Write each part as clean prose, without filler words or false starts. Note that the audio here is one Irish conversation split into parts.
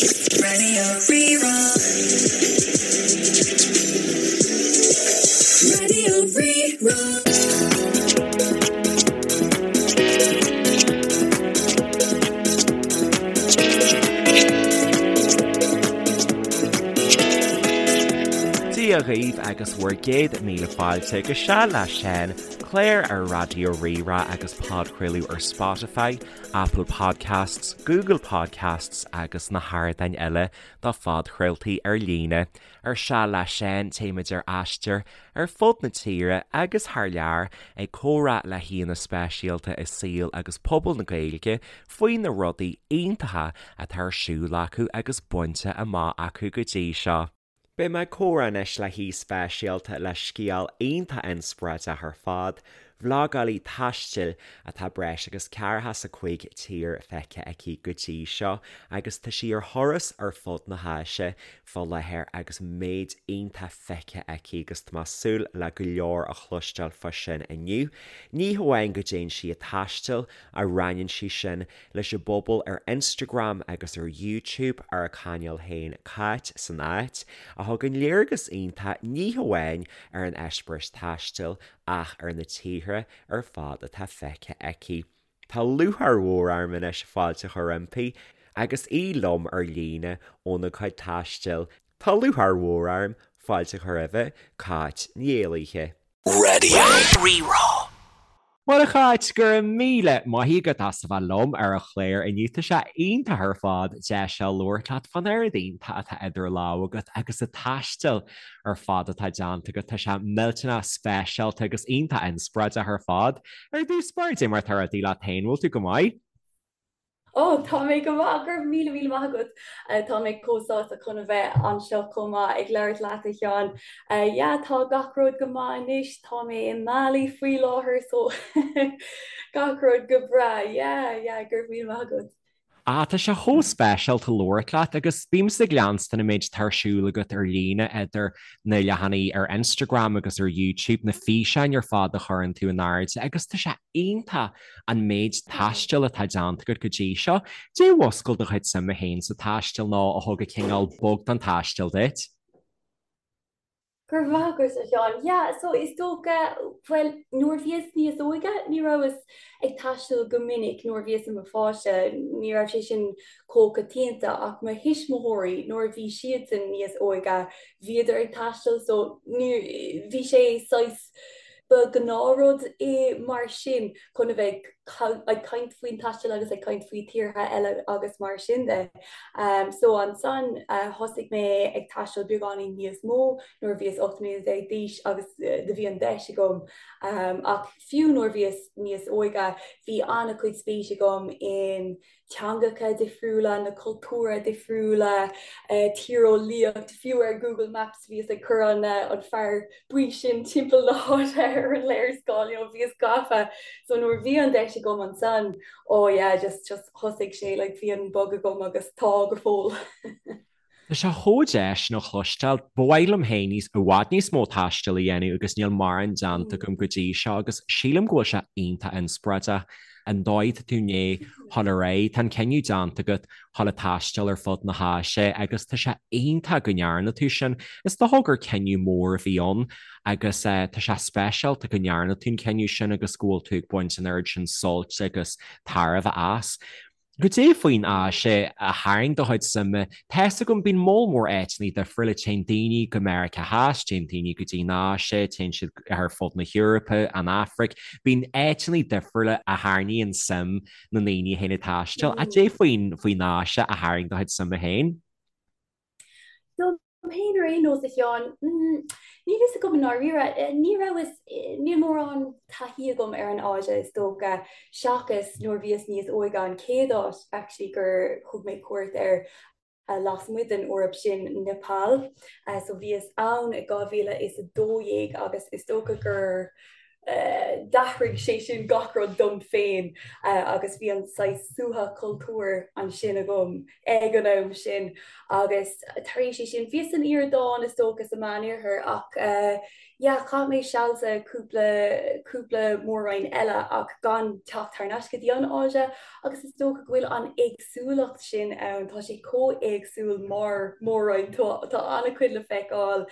Raidió Rí-Rá. Raidió Rí-Rá. Dia dhaoibh agus bhur gcéad míle fáilte go Seal le Seán, clár ar Raidió Rí-Rá agus podchraoladh ar Spotify, Apple Podcasts, Google Podcasts agus na hardáin eile do phodchraoltaí ar líne. Ar Seal le Seán, téimid ar aistear ar fud na tíre agus thar lear ag comhrá le haíonna speisialta i saol agus pobal na Gaeilge faoi na rudaí iontacha atá ar siúl acu agus bainte amach acu go dtí seo. Beidh mé ag comhrá anois le haoi speisialta le scéal iontach inspioráideach ar fad, vlogálaí taistil atá breis agus 45 tír feicthe aici go dtí seo agus tá sí ar thuras ar fud na hÁise fá láthair agus méid iontach feicthe aici agus tá mé ag súil le go leor a chloisteáil fá sin inniu. Ní hamháin go dtéann sí ag taisteal ach roinneann sí sin leis an bpobal ar Instagram agus ar YouTube ar a cainéal féin Cáit san Áit, a thugann léargas iontach ní hamháin ar an eispéireas taistil ach ar na tíortha ar fad atá feicthe aici. Tá lúcháir mhór orm anois fáilte a chur roimpi agus í liom ar líne óna cuid taistil. Tá lúcháir mhór orm fáilte a chur roimhe, Cáit Ní Éalaithe. Raidió Rí-Rá. Bhuel a Cháit, go raibh míle maith agat as a bheith liom ar an chlár inniu. Tá sé iontach ar fad deis a labhairt leat fán oiread iontach atá idir lámha agat agus an taisteal ar fad atá déanta agat. Tá sé millteanach speisialta agus iontach inspioráideach ar fad. Ar dtús báire, cad é mar atá rudaí leat féin, bhfuil tú go maith? Ó, tá mé go maith, go raibh míle míle maith agat. Tá mé chomh sásta chun a bheith anseo chomh maith ag labhairt leat, a Sheáin. Yeah, tá gach rud go maith anois, tá mé i mBali faoi láthair so gach rud go breá. Yeah, yeah, go raibh míle maith agat. Ah, tá sé chomh speisialta labhairt leat agus bímse ag leanstan an méid atá ar siúl agat ar líne idir na leathanaigh ar Instagram agus ar YouTube, na físeáin ar fad a chuireann tú in airde agus tá sé iontach an méid taistil atá déanta agat go dtí seo. Cad é a mhúscail do chuid suime féin sa taisteal nó a thug an cineál bug don taisteal duit? Go raibh maith agat, a Sheáin. Yeah, so is dócha, bhuel, nuair a bhíos níos óige, ní rabhas ag taisteal go minic nuair a bhíos i mo pháiste, ní raibh sé sin chomh coitianta, ach mo thuismitheoirí, nuair a bhí siadsan níos óige, bhíodar ag taisteal, so ní, bhí sé saghas, Ba ghnáthrud é mar sin chun a bheith ag caint faoin taisteal agus ag caint faoi tíortha eile agus mar sin de. So ansan thosaigh mé ag taisteal beagáinín níos mó nuair a bhíos 18 mbliana d'aois agus do bhí an deis agam. Ach fiú nuair a bhíos níos óige bhí an-chuid spéis agam in teangacha difriúla, na cultúra difriúla, tíreolaíocht, fiú ar Google Maps bhíos ag cur an an fear buí sin timpeall na háite ar an léarscáil, you know, bhíos gafa. So nuair a bhí an deis agam ansan, oh yeah, just just thosaigh sé, like bhí an bug agam agus tá go fóill. Tá sé chomh deas sin a chloisteáil. Ba mhaith liom féin níos, i bhfad níos mó taistil a dhéanamh agus níl mórán déanta agam go dtí seo agus sílim go bhfuil sé iontach inspioráideach an dóigh atá tú i ndiaidh dhul ar aghaidh. Tá an cinneadh déanta agat dhul ag taisteal ar fud na hÁise agus tá sé iontach go ndearna tú sin. Is dócha gur cinneadh mór a bhí ann agus tá sé speisialta go ndearna tú an cinneadh sin agus go bhfuil tú ag baint an oiread sin sult agus tairbhe as. Cad é faoin Áise a tharraing do chuid suime? Tá's agam, bíonn moll mór áiteanna difriúla, téann daoine go Meiriceá Theas, téann daoine go dtí an Áise, téann siad ar fud na hEorpa, an Afraic, bíonn áiteanna difriúla a tharraingíonn suim na ndaoine a théann ag taisteal. Cad é faoin faoin Áise a tharraing do chuid suime féin? Dom féin ar aon nós, a Sheáin, níl fhios agam i ndáiríre. Ní rabhas, níl mórán taithí agam ar an Áise is dócha, seachas nuair a bhíos níos óige, an chéad áit actually gur thug mé cuairt air lasmuigh den Eoraip sin Nepal. So bhíos ann i 2012 agus is dócha gur. D'athraigh sé sin gach rud dom féin agus bhí an saghas suaitheadh cultúir ansin agam ag an am sin agus tar éis é sin bhíos san Iordáin is dócha sa Meánoirthear ach yeah chaith mé seal sa cúpla cúpla mór-roinn eile ach gan teacht thar n-ais go dtí an Áise agus is dócha go bhfuil an éagsúlacht sin ann, tá sé chomh éagsúil mar mhór-roinn, tá an-chuid le feiceáil,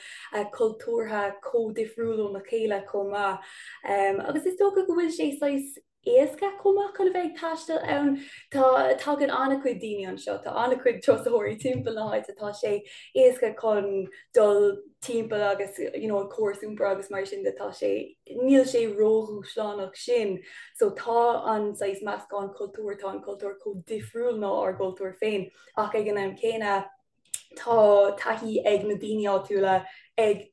cultúrtha chomh difriúil óna chéile chomh maith. Agus is dócha go bhfuil sé saghas éasca chomh maith chun a bheith ag taisteal ann. Tá, tagann an-chuid daoine anseo, tá an-chuid turasóirí timpeall na háite, tá sé éasca chun dul timpeall agus you know an córas iompair agus mar sin de tá sé, níl sé ródhúshlánach sin. So tá an saghas meascán cultúr, tá an cultúr chomh difriúil ná ár gcultúr féin ach ag an am céanna tá taithí ag na daoine áitiúla, ag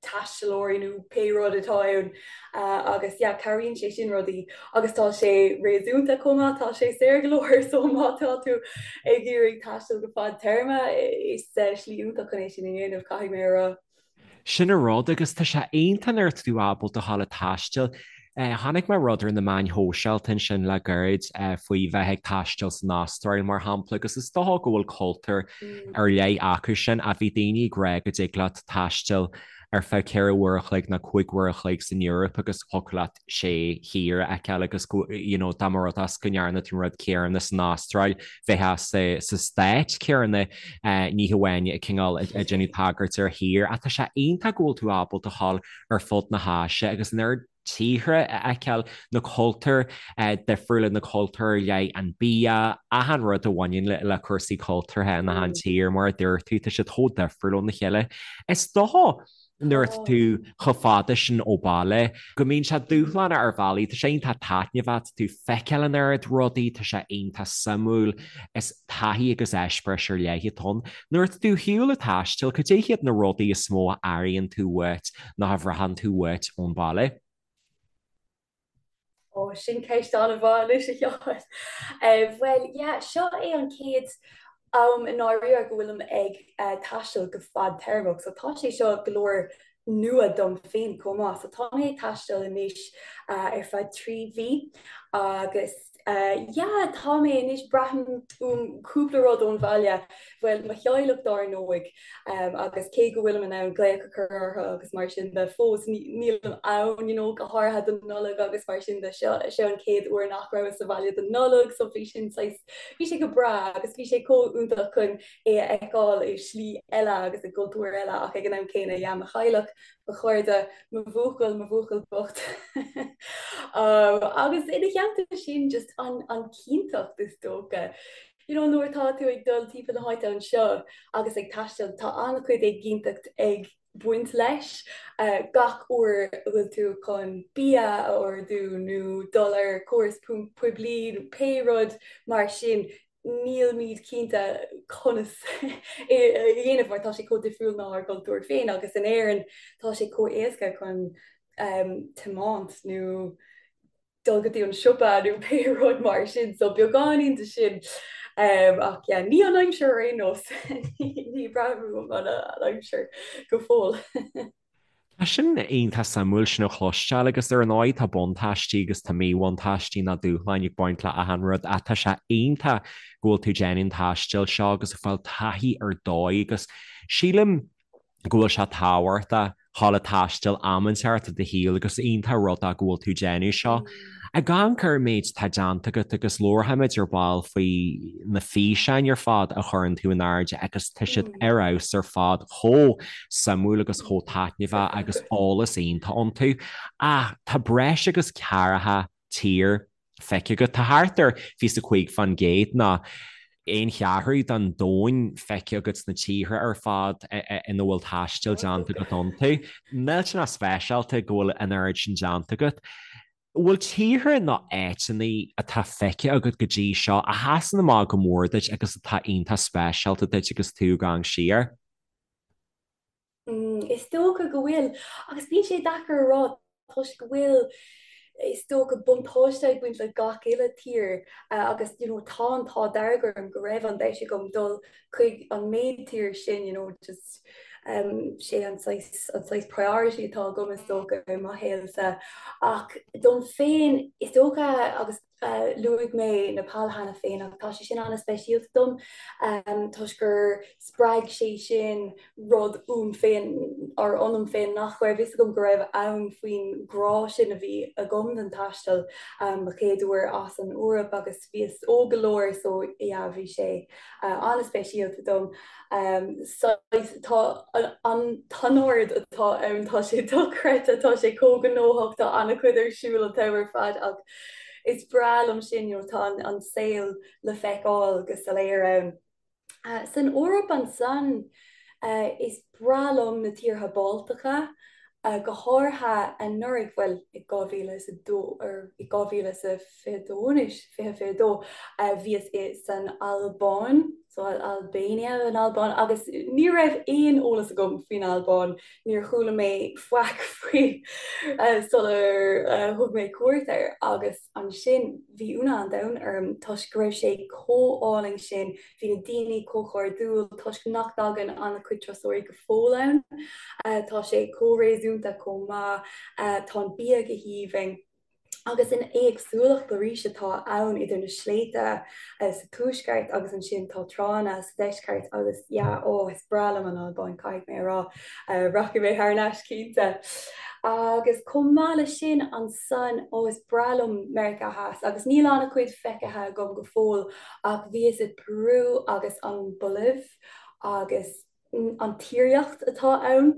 taistealóirí nó pé rud atá ann agus yeah cabhraíonn sé sin rudaí agus tá sé réasúnta chomh maith, tá sé saor go leor so má tá tú ag iarraidh taisteal go fadtéarma is slí iontach chun é sin a dhéanamh caithfidh mé a rá. Sin an rud agus tá sé iontach nuair atá tú ábalta a ghabháil ag taisteal. Chonaic mé rud ar na meáin shóisialta ansin le gairid faoi bheith ag taisteal san Astráil mar shampla agus is dócha go bhfuil cultúr ar leith acu sin ach bhí daoine ag rá go dtig leat taisteal ar feadh 4 uair a chloig nó 5 uair a chloig san Eoraip agus thiocfadh leat sé thír a fheiceáil agus go you know dá mba rud é go ndearna tú an rud céanna san Astráil bheifeá sa sa stát céanna ní hamháin cineál ag déanamh tagairt ar thír ach tá sé iontach go bhfuil tú ábalta a ghabháil ar fud na hÁise agus an oiread tíortha a fheiceáil, na cultúir difriúla, na cultúir ar leith, an bia, achan rud a bhaineann le cúrsaí cultúrtha in achan tír, mar a dúirt tú, tá siad chomh difriúil óna chéile. Is dócha nuair atá tú chomh fada sin ó bhaile go mbíonn sé dúshlánach ar bhealaí, tá sé iontach taitneamhach, tá tú ag feiceáil an oiread rudaí, tá sé iontach suimiúil, is taithí agus eispéireas ar leith atá ann. Nuair atá tú ar shiúl ag taisteal, cad é hiad na rudaí is mó a airíonn tú uait nó a bhraitheann tú uait ón bhaile? Ó, sin ceist an-mhaith anois, a Sheáin. Bhuel, yeah, seo é an chéad am i ndáiríre go bhfuilim ag taisteal go fadtéarmach, so tá sé seo go leor nua dom féin chomh maith. So tá mé ag taisteal anois ar feadh 3 mhí agus yeah tá mé anois, braithim uaim cúpla rud ón bhaile, bhuel mo theaghlach dár ndóigh agus cé go bhfuilim in ann glaoch a chur orthu agus mar sin de fós nílim ann you know go háirithe don Nollaig agus mar sin de seo seo an chéad uair nach rabhas sa bhaile don Nollaig so bhí sin saghas bhí sé go breá agus bhí sé chomh iontach chun é a fheiceáil i slí eile agus i gcultúr eile ach ag an am céanna yeah mo theaghlach, mo chairde, mo bhuachaill, mo bhuachaill bocht. Agus ina theannta sin just an an chinnteacht is dócha. You know nuair atá tú ag dul timpeall na háite anseo agus ag taisteal tá an-chuid éiginnteacht ag baint leis. Gach uair a bhfuil tú chun bia a ordú nó dul ar chóras poiblí nó pé rud mar sin, nílimid cinnte conas é a dhéanamh mar tá sé chomh difriúil ná ár gcultúr féin agus in Éirinn tá sé chomh éasca chun tiomáint nó dul go dtí an siopa nó pé rud mar sin so beagáinín de sin ach yeah ní an aimsir ar aon nós ní braithim uaim an aimsir go fóill. Tá sin iontach suimiúil sin a chloisteáil agus ar ndóigh tá buntáistí agus tá míbhuntáistí nó dúshláin ag baint le achan rud ach tá sé iontach go bhfuil tú ag déanamh an taistil seo agus ag fáil taithí ar dóigh agus sílim go bhfuil sé tábhachtach dhul ag taisteal am inteacht i do shaol agus iontach rud é go bhfuil tú ag déanamh seo. Ag amharc ar an méid atá déanta agat agus labharfaimid ar ball faoi na físeáin ar fad a chuireann tú in airde agus tá siad ar fheabhas ar fad, chomh suimiúil agus chomh taitneamhach agus eolas iontach iontu. Ach tá breis agus ceathracha tír feicthe agat. Tá thart ar 25% nó aon cheathrú den domhan feicthe agat sna tíortha ar fad ina bhfuil taisteal déanta agat iontu. Millteanach speisialta go bhfuil an oiread sin déanta agat. An bhfuil tíortha nó áiteanna atá feicthe agat go dtí seo a sheasann amach go mór duit agus atá iontach speisialta duit agus tú ag amharc siar? Is dócha go bhfuil, agus bíonn sé deacair a rá toisc go bhfuil, is dócha, buntáiste ag baint le gach uile tír agus you know tá an t-ádh dearg orm go raibh an deis agam dul chuig an méid tír sin you know just. Sé an saghas an saghas priority atá agam is dócha i mo shaolsa. Ach dom féin is dócha agus luaigh mé Nepal cheana féin ach tá sé sin an-speisialta dom toisc gur spreag sé sin rud uaim féin or ionam féin nach raibh fhios agam go raibh ann faoin grá sin a bhí agam don taisteal. Mo chéad uair as an Eoraip agus bhíos óg go leor so yeah bhí sé an-speisialta dom. Saghas tá an t-anord atá ann tá sé dochreidte, tá sé chomh gnóthach, tá an-chuid ar siúl an t-am ar fad ach is breá liom sin you know tá an saol le feiceáil go soiléir ann. San Eoraip ansan is breá liom na tíortha Baltacha, go háirithe anuraidh, bhuel i 2002 or i 2022 anois, 2022, bhíos i san Albáin, so Albania, an Albáin, agus ní raibh aon eolas agam faoin Albáin, níor chuala mé faic faoi sular thug mé cuairt air agus ansin bhí ionadh an domhain orm toisc go raibh sé chomh álainn sin, bhí na daoine chomh cairdiúil toisc nach dtagann an-chuid turasóirí go fóill ann, tá sé chomh réasúnta chomh maith, tá an bia go haoibhinn. Agus an éagsúlacht arís atá ann idir na sléibhte sa tuaisceart agus ansin tá tránna sa deisceart agus yeah, oh is breá liom an Albáin caithfidh mé a rá. Rachaidh mé thar n-ais cinnte. Agus chomh maith leis sin ansan, oh is breá liom Meiriceá Theas agus níl an-chuid feicthe agam go fóill ach bhíos i Peru agus an Bholaiv agus an tíreolaíocht atá ann,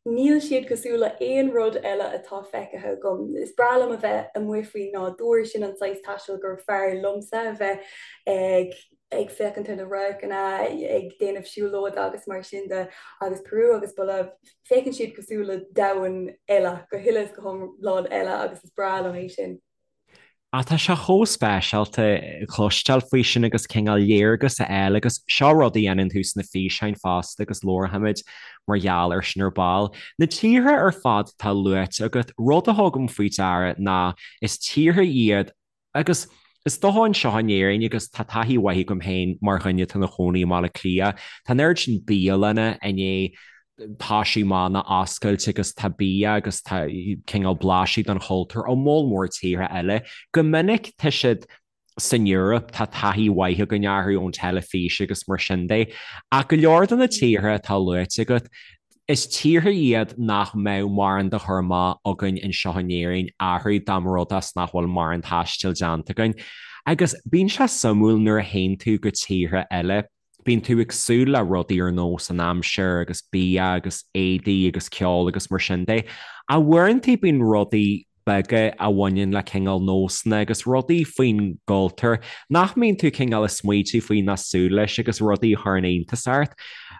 níl siad cosúil le aon rud eile atá feicthe agam. Is breá liom a bheith amuigh faoin nádúr, sin an saghas taistil gur fearr liomsa, a bheith ag ag féachaint ar na radharcanna, ag déanamh siúlóide agus mar sin de. Agus Peru agus Bolaiv, féachann siad cosúil le domhan eile, go huile is go hiomlán eile agus is breá liom é sin. Ach tá sé chomh speisialta cloisteáil faoi sin agus cineál léargas a fháil agus seo rud a dhéanann tú sna físeáin fosta agus labharfaimid mar gheall air sin ar ball. Na tíortha ar fad atá luaite agat, rud a thugaim faoi deara ná is tíortha iad agus is dócha anseo in Éirinn agus tá taithí mhaith agam féin mar dhuine atá ina chónaí i mBaile Átha Cliath, tá an oiread sin bialanna i ndiaidh toisiú amach nó oscailt agus tá bia agus tá cineál blaiseadh den chultúr ó moll mór tíortha eile. Go minic tá siad san Eoraip, tá taithí mhaith againn orthu ón teilifís agus mar sin de. Ach go leor de na tíortha atá luaite agat, is tíortha iad nach mbeadh mórán de chur amach againn anseo in Éirinn orthu dá mba rud é is nach bhfuil mórán taistil déanta againn. Agus bíonn sé suimiúil nuair a théann tú go tíortha eile, Bíonn tú ag súil le rudaí ar nós an aimsir agus bia agus éadaí agus ceol agus mar sin de. Ach uaireanta bíonn rudaí beaga a bhaineann le cineál nósanna agus rudaí faoin gcultúr nach mbíonn tú cineál ag smaoitiú faoi ná súil leis agus rudaí a chuireann iontas ort.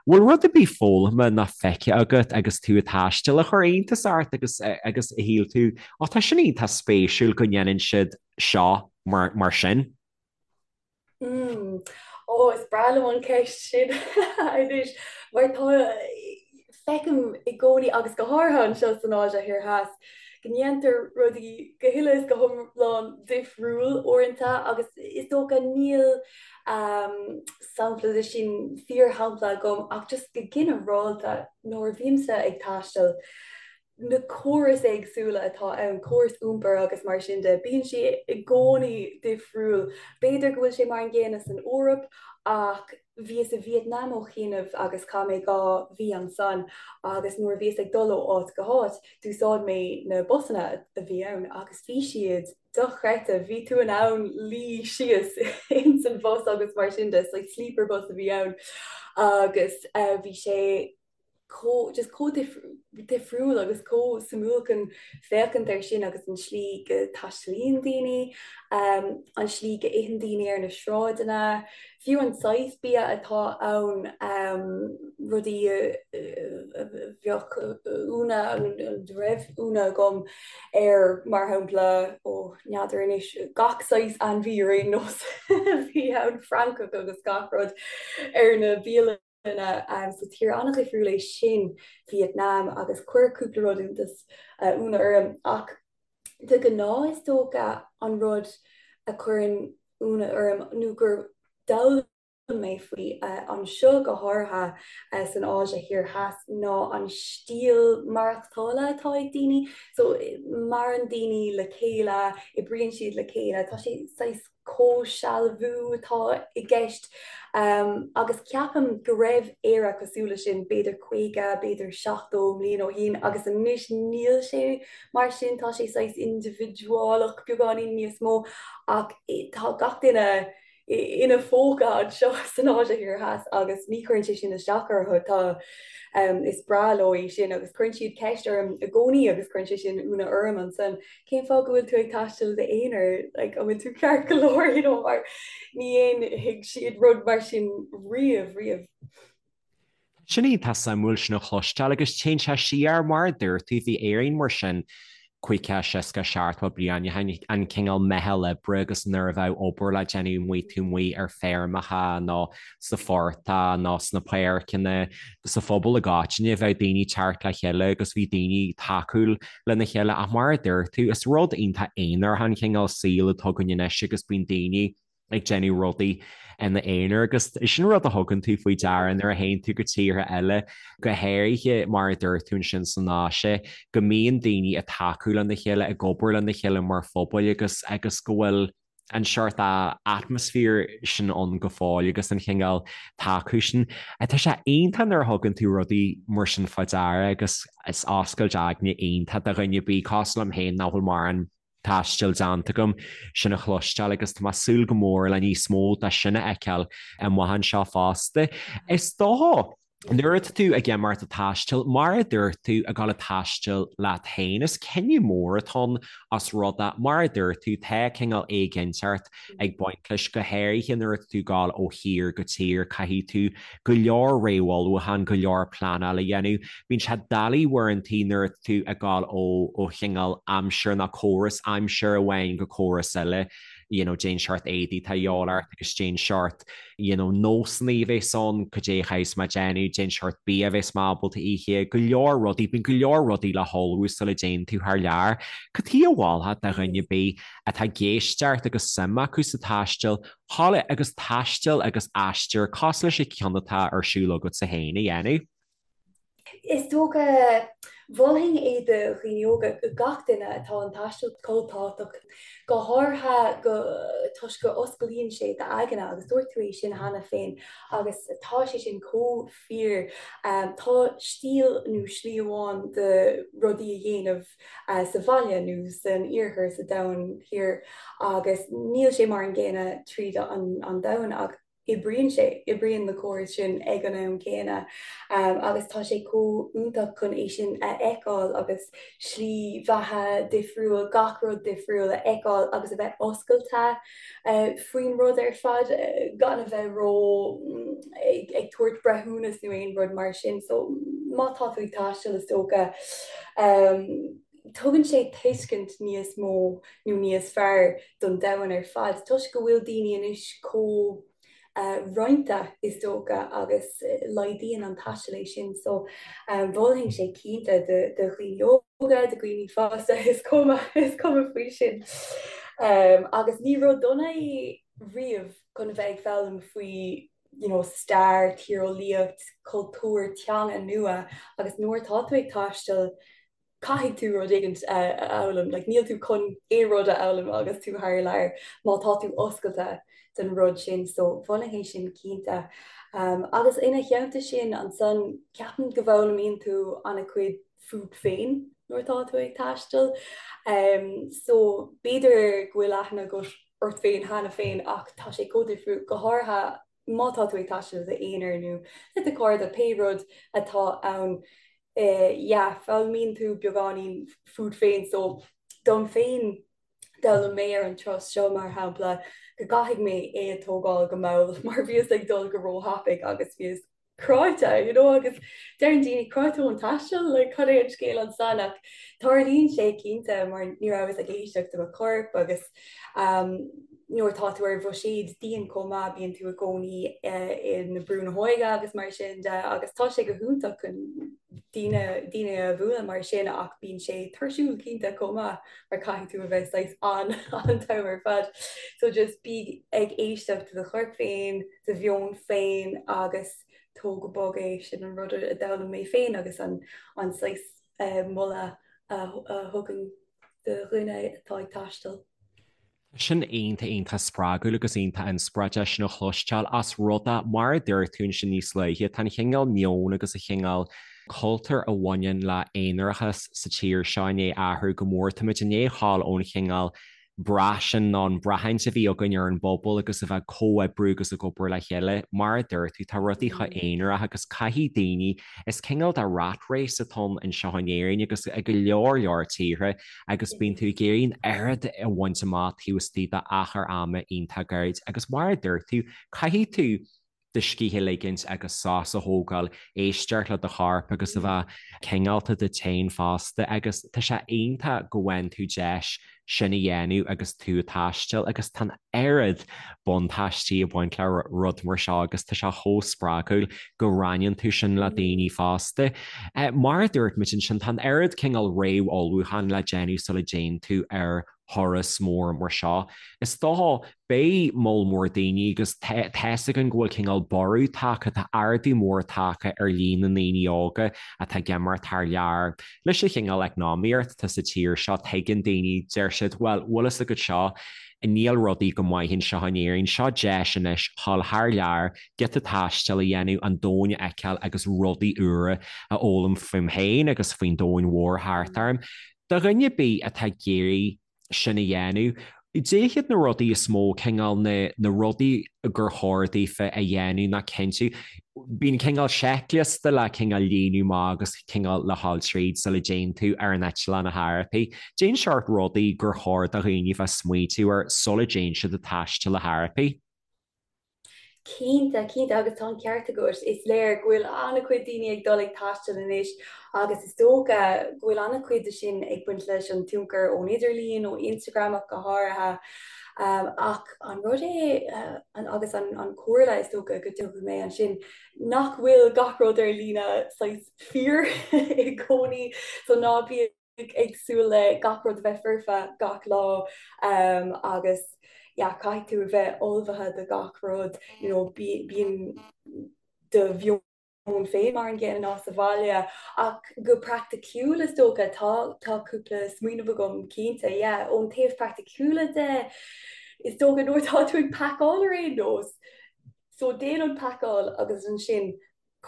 Bhfuil rud ar bith foghlamtha ná feicthe agat agus tú ag taisteal a chuir iontas ort agus agus a shíl tú, 'Ó tá sin iontach spéisiúil go ndéanann siad seo mar mar sin'? Mm. Ó, is breá liom an ceist sin anois, mar tá, feicim i gcónaí, agus go háirithe anseo san Áise Thiar Theas, go ndéantar rudaí go huile is go hiomlán difriúil uaireanta agus is dócha níl sampla de sin, fíorshampla agam ach just go ginearálta nuair a bhímse ag taisteal, na córais éagsúla atá ann, córas iompair agus mar sin de, bíonn sé i gcónaí difriúil. B'fhéidir go bhfuil sé mar an gcéanna san Eoraip ach bhíos i Vietnam ó chianaibh agus chaith mé 2 mhí ansan agus nuair a bhíos ag dul ó áit go háit d'úsáid mé na busanna a bhí ann agus bhí siad dochreidte, bhí tú in ann luí síos ins an bhus agus mar sin de, like sleeper bus a bhí ann agus bhí sé chomh just chomh difriúil agus chomh suimiúil chun féachaint air sin agus an slí go dtaistealaíonn daoine, an slí go itheann daoine ar na sráideanna, fiú an saghas bia atá ann, rudaí a bheadh ionadh, a raibh ionadh agam air, mar shampla, ó n'fheadar anois, gach saghas ainmhí ar aon nós a bhí ann, francach agus gach rud ar na bialanna. So tír an-dhifriúil é sin, Vietnam, agus chuir cúpla rud iontas, ionadh orm. Ach de ghnáth is dócha an rud a chuireann ionadh orm nó gur d'fhoghlaim mé faoi anseo go háirithe san Áise Thiar Theas ná an stíl maireachtála atá ag daoine. So maireann daoine le chéile, oibríonn siad le chéile, tá sé saghas comhshealbhú atá i gceist agus ceapaim go raibh Éire cosúil leis sin b'fhéidir 50, b'fhéidir 70 mbliain ó shin agus anois níl sé mar sin, tá sé saghas indibhidiúlach beagáinín níos mó ach tá gach duine ina phóca anseo san Áise Thiar Theas agus ní chuireann sé sin isteach orthu, tá, is breá leo é sin agus cuireann siad ceist orm i gcónaí agus cuireann sé sin ionadh orm ansan, cén fáth go bhfuil tú ag taisteal i d'aonar, like an bhfuil tú ceart go leor, you know, mar ní dhéanfaidh siad rud mar sin riamh, riamh. Sin iontach suimiúil sin a chloisteáil agus téann sé siar, mar a dúirt tú, bhí Éirinn mar sin 50, 60, 70 bliain ó shin, an cineál meitheal oibre agus nuair a bheadh obair le déanamh amuigh taobh amuigh ar feirmeacha nó sa phortach nó sna páirceanna, sa phobal i gcoitinne, bheadh daoine ag teacht le chéile agus bhí daoine tacúil lena chéile ach mar a dúirt tú, is rud iontach aonarach an cineál saoil atá againn anois agus bíonn daoine ag déanamh rudaí ina aonar agus sin rud a thugann tú faoi deara nuair a théann tú go tíortha eile, go háirithe mar a dúirt tú ansin san Áise, go mbíonn daoine ag tacú lena chéile, ag obair lena chéile mar phobail agus agus go bhfuil an seort atmaisféar sin ann go fóill agus an chineál tacú sin. Tá sé iontach nuair a thugann tú rudaí mar sin fá deara agus is oscailt aigne iontach do dhuine ar bith cosúil liom féin nach bhfuil mórán taistil déanta agam sin a chloisteáil agus tá mé ag súil go mór le níos mó de sin a fheiceáil amuigh anseo fosta. Is dócha, nuair atá tú ag imeacht ag taisteal, mar a dúirt tú, ag dul ag taisteal leat féin, is cinneadh mór atá ann os rud é, mar a dúirt tú, tá cineál éiginnteacht ag baint leis, go háirithe nuair atá tú ag dul ó thír go tír, caithfidh tú go leor réamhullmhúchán, go leor pleanáil a dhéanamh. Bíonn sé doiligh uaireantaí nuair atá tú ag dul ó ó chineál aimsir nó córas aimsire amháin go córas eile, you know, cén seort éadaí atá a dhíobháil ort agus cén seort, you know, nósanna a bheas ann, cad é a chaithfeas mé déanamh, cén seort bia a bheas mé ábalta ithe, go leor rudaí, bíonn go leor rudaí le hullmhú sula dtéann tú thar lear. Cad chuige a mholfá do dhuine ar bith atá ag éisteacht agus suim acu sa taisteal, Thall agus taisteal agus aistear cosúil leis an cheann atá ar siúl agatsa féin a dhéanamh. Is dócha, mholfainn é do dhaoine óga, gach duine, tá an taisteal chomh tábhachtach, go háirithe go toisc go osclaíonn sé d'aigne agus dúirt tú é sin cheana féin agus tá sé sin chomh fíor. Tá stíl nó slí amháin de rudaí a dhéanamh sa bhaile nó san iarthar, sa domhan thiar agus níl sé mar an gcéanna tríd an domhan ach oibríonn sé, oibríonn na córais sin ag an am céanna agus tá sé chomh iontach chun é sin a fheiceáil agus slí bheatha difriúil, gach rud difriúil a fheiceáil agus a bheith oscailte faoin rud ar fad gan a bheith ró ag ag tabhairt breithiúnas nó aon rud mar sin. So má tá tú ag taisteal is dócha tugann sé tuiscint níos mó nó níos fearr don domhan ar fad toisc go bhfuil daoine anois chomh roinnte is dócha agus laghdaíonn an taisteal é sin so mholfainn sé cinnte do dhaoine óga, do dhaoine fásta, is cuma, is cuma faoi sin. Agus ní rud dona é riamh chun a bheith ag foghlaim faoi you know stair, tíreolaíocht, cultúr, teanga nua agus nuair atá tú ag taisteal caithfidh tú rud éigin a fhoghlaim, like níl tú chun aon rud a fhoghlaim agus tú thar lear má tá tú oscailte don rud sin, so mholfainn é sin cinnte. Agus ina theannta sin ansan ceapaim go bhfoghlaimíonn tú an-chuid fút féin nuair atá tú ag taisteal. So b'fhéidir go bhfuil aithne agat ort féin cheana féin ach tá sé chomh difriúil, go háirithe má tá tú ag taisteal i d'aonar nó le do chairde, pé rud atá ann, yeah, foghlaimíonn tú beagáinín fút féin. So, dom féin, d'fhoghlaim mé ar an turas seo, mar shampla, go gcaithfidh mé é a tógáil go mall mar bhíos ag dul go róthapaidh agus bhíos cráite, you know, agus deireann daoine cráite ón taisteal, like, cad é an scéal ansan ach tarlaíonn sé cinnte mar ní rabhas ag éisteacht do mo chorp agus um, Nuair atá tú ar bhuiséad dian chomh maith, bíonn tú i gcónaí i na brú na hóige agus mar sin de agus tá sé go hiontach chun daoine daoine a bhualadh mar sin ach bíonn sé tuirsiúil cinnte chomh maith mar caithfidh tú a bheith saghas an an t-am ar fad. So just bí ag éisteacht do do chorp féin, do mheon féin agus tóg go bog é, sin an rud a d'fhoghlaim mé féin agus an an saghas moladh a thugaim do dhuine atá ag taisteal. Tá sin iontach, iontach spreagúil agus iontach inspioráideach sin a chloisteáil ós rud é, mar a dúirt tú ansin níos luaithe, tá an chineál meoin agus an chineál cultúir a bhaineann le aonarachas sa tír seo i ndiaidh athrú go mór. Táimid i ndiaidh ghabháil ón chineál brath sin nó an braithint a bhí againn ar an bpobal agus a bheith ag comhoibriú agus ag obair le chéile. Mar a dúirt tú, tá rudaí chomh aonarach agus caithfidh daoine, is cineál de rat race atá ann anseo in Éirinn agus i go leor leor tíortha agus bíonn tú ag iarraidh an oiread a bhaint amach taobh istigh d'achar ama iontach gairid agus mar a dúirt tú, caithfidh tú do scíth a ligint agus sos a thógáil, éisteacht le do chorp agus a bheith cineálta duit féin fosta agus tá sé iontach go bhfaigheann tú deis sin a dhéanamh agus tú ag taisteal agus tá an oiread buntáistí ag baint le rud mar seo agus tá sé chomh spreagúil go roinneann tú sin le daoine fosta. Mar a dúirt muid ansin, tá an oiread cineál réamh-ullmhúcháin le déanamh sula dtéann tú ar thuras mór mar seo. Is dócha, beidh moll mór daoine agus tá's againn go bhfuil cineál borradh tagtha, tá ardú mór tagtha ar líon na ndaoine óga atá ag imeacht thar lear. Leis an chineál eacnamaíocht atá sa tír seo, tuigeann daoine, deir siad, bhuel, bhfuil fhios agat seo, níl rudaí go maith anseo in Éirinn, seo deis anois dhul thar lear, giota taistil a dhéanamh, an domhan a fheiceáil agus rudaí úra a fhoghlaim fúm féin agus faoin domhan mhór thart orm. Do dhuine ar bith atá ag iarraidh sin a dhéanamh, cad iad na rudaí is mó, cineál na, na rudaí gur chóir daofa a dhéanamh ná cinntiú, bíonn cineál seicliosta le cineál líonadh amach agus cineál le dhul tríd sula dtéann tú ar an eitleán ar chor ar bith. Cén seort rudaí gur chóir do dhaoine bheith smaoitiú air sula dtéann siad ag taisteal ar chor ar bith? Cinnte, cinnte, agus tá an ceart agat. Is léir go bhfuil an-chuid daoine ag dul ag taisteal anois agus is dócha go bhfuil an-chuid de sin ag baint leis an tionchar ón idirlíon, ó Instagram ach go háirithe. Ach an rud é, agus an chomhairle is dócha go dtabharfaidh mé ansin, nach bhfuil gach rud ar líne saghas fíor i gcónaí, so ná bí ag súil le gach rud a bheith foirfe gach lá agus yeah caithfidh tú a bheith ullmhaithe do gach rud, you know bíonn do mheon féin mar an gcéanna ná sa bhaile ach go praiticiúil is dócha tá tá cúpla smaoineamh agam cinnte yeah ón taobh praiticiúla de is dócha nuair atá tú ag pacáil ar aon nós so déan an pacáil agus ansin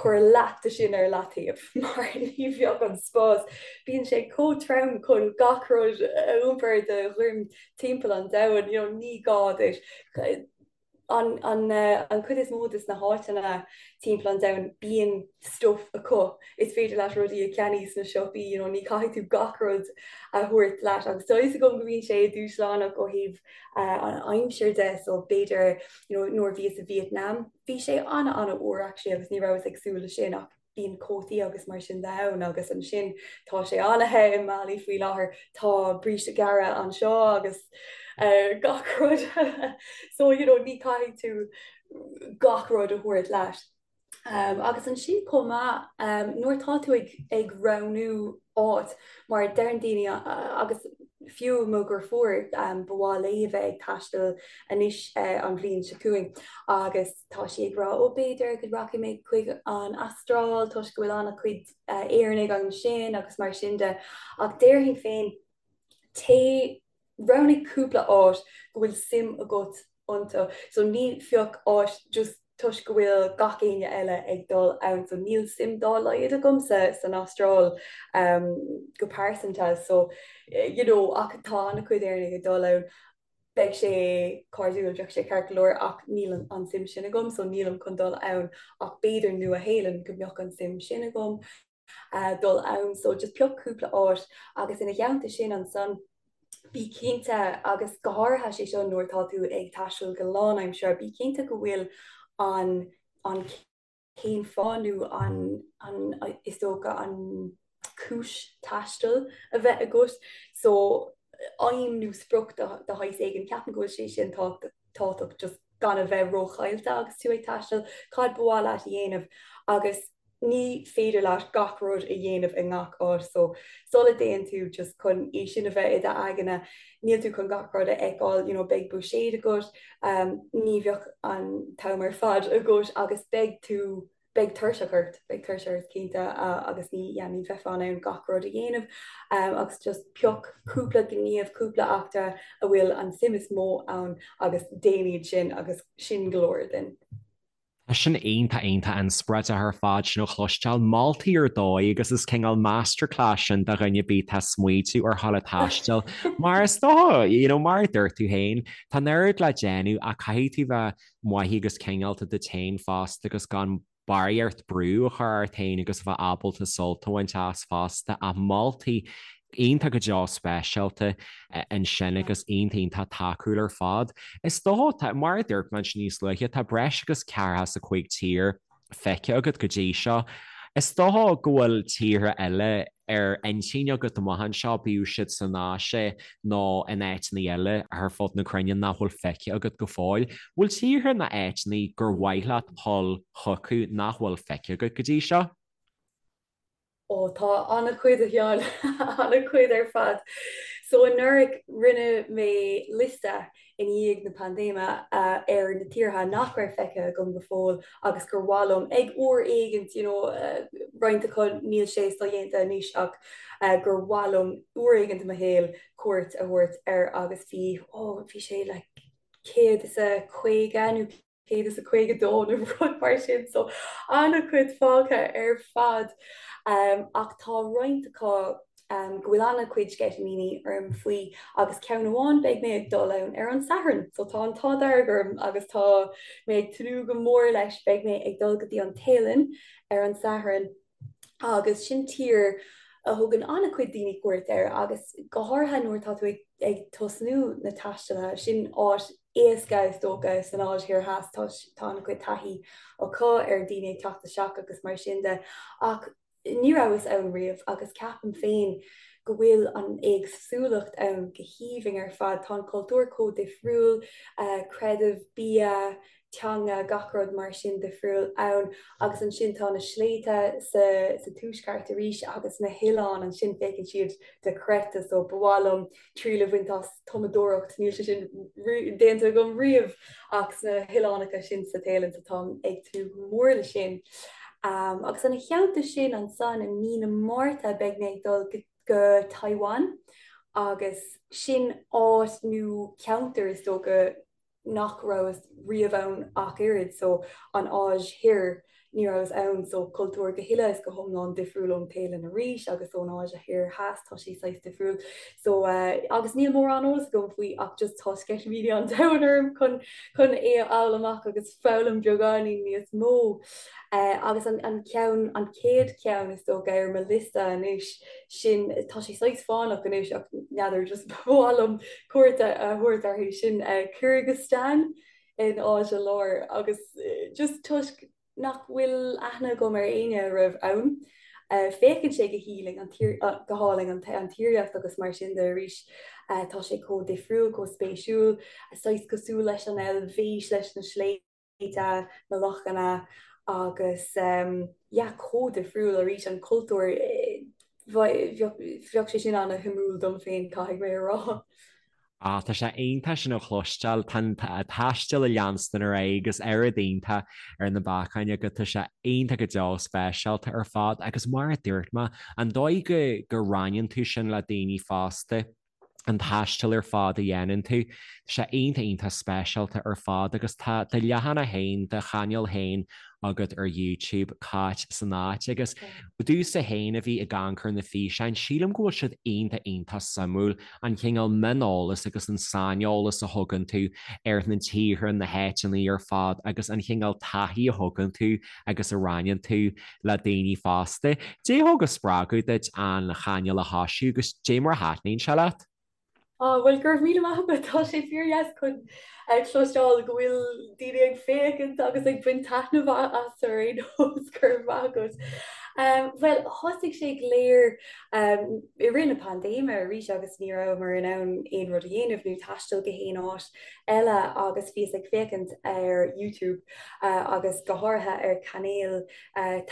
cuir leath de sin ar leataobh mar ní bheadh an spás, bíonn sé chomh trom chun gach rud a iompar ar do dhroim timpeall an domhain, you know, ní gá duit. An, an, an chuid is mó de na háiteanna timpeall an domhain bíonn stuff acu, is féidir leat rudaí a cheannaí sna siopaí, you know, ní chaithfidh tú gach rud a thabhairt leat agus tá fhios agam go mbíonn sé dúshlánach ó thaobh uh, an aimsir de, so b'fhéidir you know, nuair bhíos i Vietnam, Bhí sé ana-ana-fhuar actually agus ní rabhas ag súil leis sin ach bíonn cótaí agus mar sin de ann agus ansin tá sé ana-the i mBali faoi láthair, tá bríste gearra anseo agus gach rud so you know ní caithfidh tú gach rud a thabhairt leat. Agus ansin chomh maith nuair atá tú ag ag roghnú áit mar deireann daoine agus fiú mo dheirfiúr ba mhaith léi a bheith ag taisteal anois an bhliain seo chugainn agus tá sí ag rá ó b'fhéidir go rachaidh mé chuig an Astráil toisc go bhfuil an-chuid Éireannaigh ansin agus mar sin de ach déarfainn féin téigh Roghnaigh cúpla áit go bhfuil suim agat iontu. So ní phioc áit just toisc go bhfuil gach éinne eile ag dul ann. So níl suim dá laghad agamsa san Astráil go pearsanta. So you know ach tá an-chuid Éireannaigh ag dul ann. Beidh sé cairdiúil, bheadh sé ceart go leor ach níl an suim sin agam so nílim chun dul ann ach b'fhéidir Nua-Shéalainn go mbeadh an suim sin agam. dul ann so just pioc cúpla áit agus ina theannta sin ansan bí cinnte agus go háirithe sé seo nuair atá tú ag taisteal go lánaimseartha bí cinnte go bhfuil an an cén fáth nó an an is dócha an cúis taistil a bheith agat so. aidhm nó sprioc de shaghas éigin, ceapaim go bhfuil sé sin tábhachtach just gan a bheith róchaillte agus tú ag taisteal, cad ba mhaith leat a dhéanamh agus ní féidir leat gach rud a dhéanamh i ngach áit so sula dtéann tú just chun é sin a bheith i d'aigne, níl tú chun gach rud a fheiceáil, you know beidh buiséad agat, ní bheadh an t-am ar fad agat agus beidh tú beidh tuirseach ort, beidh tuirse ort cinnte agus ní, yeah, ní bheifeá in ann gach rud a dhéanamh agus just pioc cúpla gníomh, cúpla eachtra a bhfuil an suim is mó ann agus déan iad sin agus sin go leor then. Tá sin iontach, iontach inspioráideach ar fad sin a chloisteáil. Moltaí ar dóigh agus is cineál masterclass sin do dhuine ar bith atá ag smaoitiú ar dhul ag taisteal. Mar is dócha, you know, mar a dúirt tú féin, tá an oiread le déanamh ach caithfidh tú bheith maith agus cineálta duit féin fosta agus gan barraíocht brú a chur ort féin agus a bheith ábalta sult a bhaint as fosta ach moltaí iontach go deo speisialta ansin agus iontach iontach tacúil ar fad. Is dócha, mar a dúirt mé ansin níos luaithe, tá breis agus 45 tír feicthe agat go dtí seo. Is dócha go bhfuil tíortha eile ar intinn agat amach anseo, bíodh siad san Áise nó in áiteanna eile ar fud na cruinne nach bhfuil feicthe agat go fóill. Bhfuil tíortha nó áiteanna gur mhaith leat dhul chucu nach bhfuil feicthe agat go dtí seo? Ó, tá an-chuid, a Sheáin, an-chuid ar fad. So anuraidh rinne mé liosta i ndiaidh na paindéime ar na tíortha nach raibh feicthe agam go fóill agus gur mhaith liom ag uair éigint, you know, roinnt acu níl sé sodhéanta anois ach gur mhaith liom uair éigint i mo shaol cuairt a thabhairt air agus bhí, oh, bhí sé like 150 nó 152 nó rud mar sin so an-chuid fágtha ar fad. Ach tá roinnt acu go bhfuil an-chuid sceitimíní orm faoi agus ceann amháin beidh mé ag dul ann ar an Satharn so tá an t-ádh dearg orm agus tá mé ag tnúth go mór leis beidh mé ag dul go dtí an Téalainn ar an Satharn agus sin tír a thugann an-chuid daoine cuairt air agus go háirithe nuair atá tú ag ag tosnú na taistealaithe, sin áit éasca is dócha san Áise Thiar Theas, tá tá an-chuid taithí acu ar daoine ag teacht isteach agus mar sin de. Ach ní rabhas ann riamh agus ceapaim féin go bhfuil an éagsúlacht ann go haoibhinn ar fad. Tá an cultúr chomh difriúil, creideamh, bia, teanga, gach rud mar sin difriúil ann. Agus ansin tá na sléibhte sa sa tuaisceart arís agus na hoileáin ansin féachann siad dochreidte so ba mhaith liom triail a bhaint as tumadóireacht, níl sé sin déanta agam riamh ach sna hoileánacha sin sa Téalainn so táim ag tnúth go mór le sin. Um, agus ina theannta sin ansan i mí na Márta beidh mé ag dul go, go Taiwan agus sin áit nó ceantar is dócha nach rabhas riamh ann ach oiread, so an Áis Thoir, ní rabhas ann, so cultúr go huile is go hiomlán difriúil ón Téalainn arís agus ón Áise Thoir Theas, tá sé saghas difriúil. So eh, agus níl mórán eolas agam faoi ach just tá sceitimíní an domhain orm chun chun é a fháil amach agus foghlaim beagáinín níos mó. Eh, agus an an ceann an chéad cheann is dócha ar mo liosta anois sin tá sé saghas fánach anois ach n'fheadar just ba mhaith liom cuairt a thabhairt orthu sin Kyrgyzstan in Áise Láir agus just toisc nach bhfuil aithne agam ar éinne a raibh ann. Féachann sé go hálainn an tír go hálainn an an tírdhreach agus mar sin de arís tá sé chomh difriúil, chomh spéisiúil, saghas cosúil leis an Eilvéis leis na sléibhte. na lochanna agus yeah chomh difriúil arís an cultúr bheadh sé sin ana-shuimiúil dom féin caithfidh mé a rá. Ah, tá sé iontach sin a chloisteáil, tá an taisteal ag leanstan ar aghaidh agus oiread iontach ar na bacáin agat, tá sé iontach go deo speisialta ar fad agus mar a dúirt mé, an dóigh go go roinneann tú sin le daoine fosta, an taisteal ar fad a dhéanann tú. Tá sé iontach iontach speisialta ar fad agus tá do leathanach féin, do chainéal féin agat ar YouTube, Cáit san Áit agus domhsa féin a bhí ag amharc ar na físeáin, sílim go bhfuil siad iontach iontach suimiúil, an cineál mioneolas agus an saineolas a thugann tú ar na tíortha, na háiteanna ar fad agus an cineál taithí a thugann tú agus a roinneann tú le daoine fosta. Cad é a thug an spreagadh duit an chainéal a thosú agus cad é mar a thaitníonn sé leat? Á, bhuel, go raibh míle maith agat, tá sé fíordheas chun cloisteáil go bhfuil daoine ag féachaint agus ag baint taitneamh as ar aon nós, go raibh maith agat. Bhuel, thosaigh sé go léir i rith na paindéime arís agus ní rabhamar in ann aon rud a dhéanamh nó taisteal go haon áit eile agus bhíos ag féachaint ar YouTube agus go háirithe ar chainéil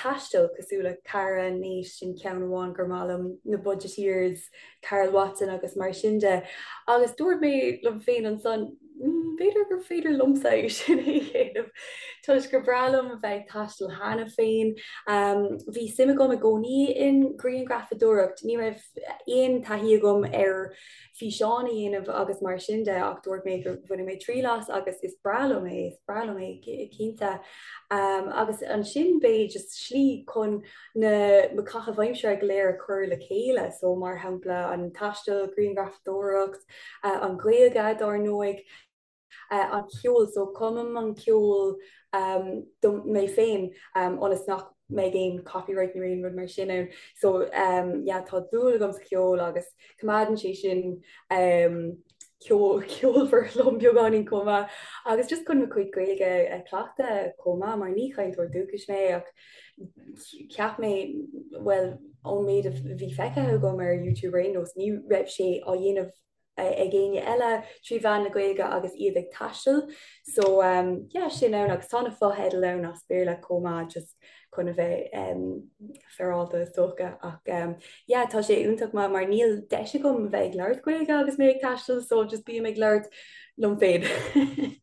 taistil cosúil le Cara, Nate, sin ceann amháin gur maith liom, na Budgeteers, Karl Watson agus mar sin de. Agus dúirt mé liom féin ansan, b'fhéidir gur féidir liomsa é sin a dhéanamh toisc gur breá liom a bheith ag taisteal cheana féin. Bhí suim agam i gcónaí in grianghrafadóireacht, ní raibh aon taithí agam ar físeán a dhéanamh agus mar sin de ach dúirt mé go bhainfidh mé triail as agus is breá liom é, is breá liom é cinnte. Agus ansin b'é just slí chun na mo chaithimh aimsire go léir a chur le chéile, so mar shampla an taisteal, grianghrafadóireacht, an Ghaeilge dár ndóigh, an ceol, so cumaim an ceol do mé féin ionas nach mbeidh aon copyright nó aon rud mar sin ann. So yeah tá dúil agam sa cheol agus coimeádann sé sin ceolmhar liom beagáinín chomh maith agus just chun mo chuid Gaeilge a chleachtadh chomh maith mar ní chainteoir dúchais mé ach cheap mé bhuel ón méid a bhí feicthe agam ar YouTube ar aon nós ní raibh sé á dhéanamh ag éinne eile trí mheán na Gaeilge agus iad ag taisteal so um, yeah, sin ann agus tá na fotheidil ann as Béarla chomh maith just chun a bheith um, féaráilte is dócha ach um, yeah, tá sé iontach maith mar níl deis agam a bheith ag labhairt Gaeilge agus mé ag taisteal so just bím ag labhairt liom féin.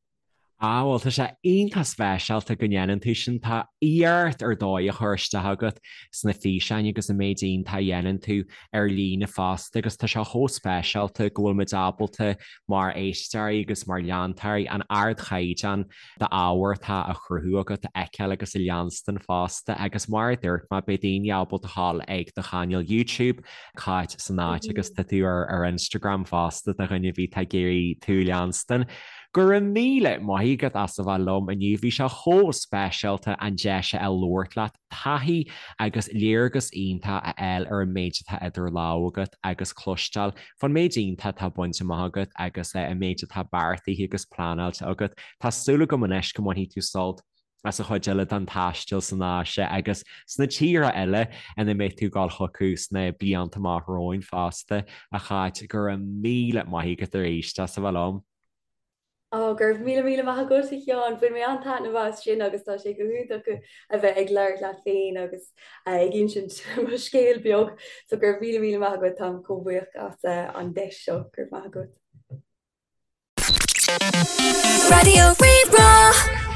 Ah bhuel tá sé iontach speisialta go ndéanann tú sin, tá iarracht ar dóigh á chur isteach agat sna físeáin agus an méid iontach a dhéanann tú ar líne fosta agus tá sé chomh speisialta go bhfuil muid ábalta mar éisteoirí agus mar leantóirí an ardchaighdeán d'ábhar atá á chruthú agat a fheiceáil agus a leanstan fosta agus mar a dúirt mé beidh daoine ábalta a ghabháil ag do chainéal YouTube Cáit san áit agus tá tú ar Instagram fosta do dhuine ar bith atá ag iarraidh tú a leanstan. Go raibh míle maith agat as a bheith liom inniu, bhí sé chomh speisialta an deis a fháil labhairt leat, taithí agus léargas iontach a fháil ar an méid atá idir lámha agat agus cloisteáil fán méid iontach atá bainte amach agat agus an méid atá beartaithe agus pleanáilte agat. Tá súil agam anois go mbainfidh tú sult as an chuid eile den taisteal san Áise agus sna tíortha eile ina mbeidh tú ag dul chucu sna blianta amach romhainn fosta, a Cháit. Go raibh míle maith agat arís as a bheith liom. Ó, go raibh míle míle maith agat, a Sheáin. Bhain mé an-taitneamh as sin agus tá sé go hiontach a bheith ag labhairt leat féin agus ag insint mo scéal beag. So go raibh míle míle maith agat, táim chomh buíoch as an deis seo. Go raibh maith agat. Raidió Rí-Rá.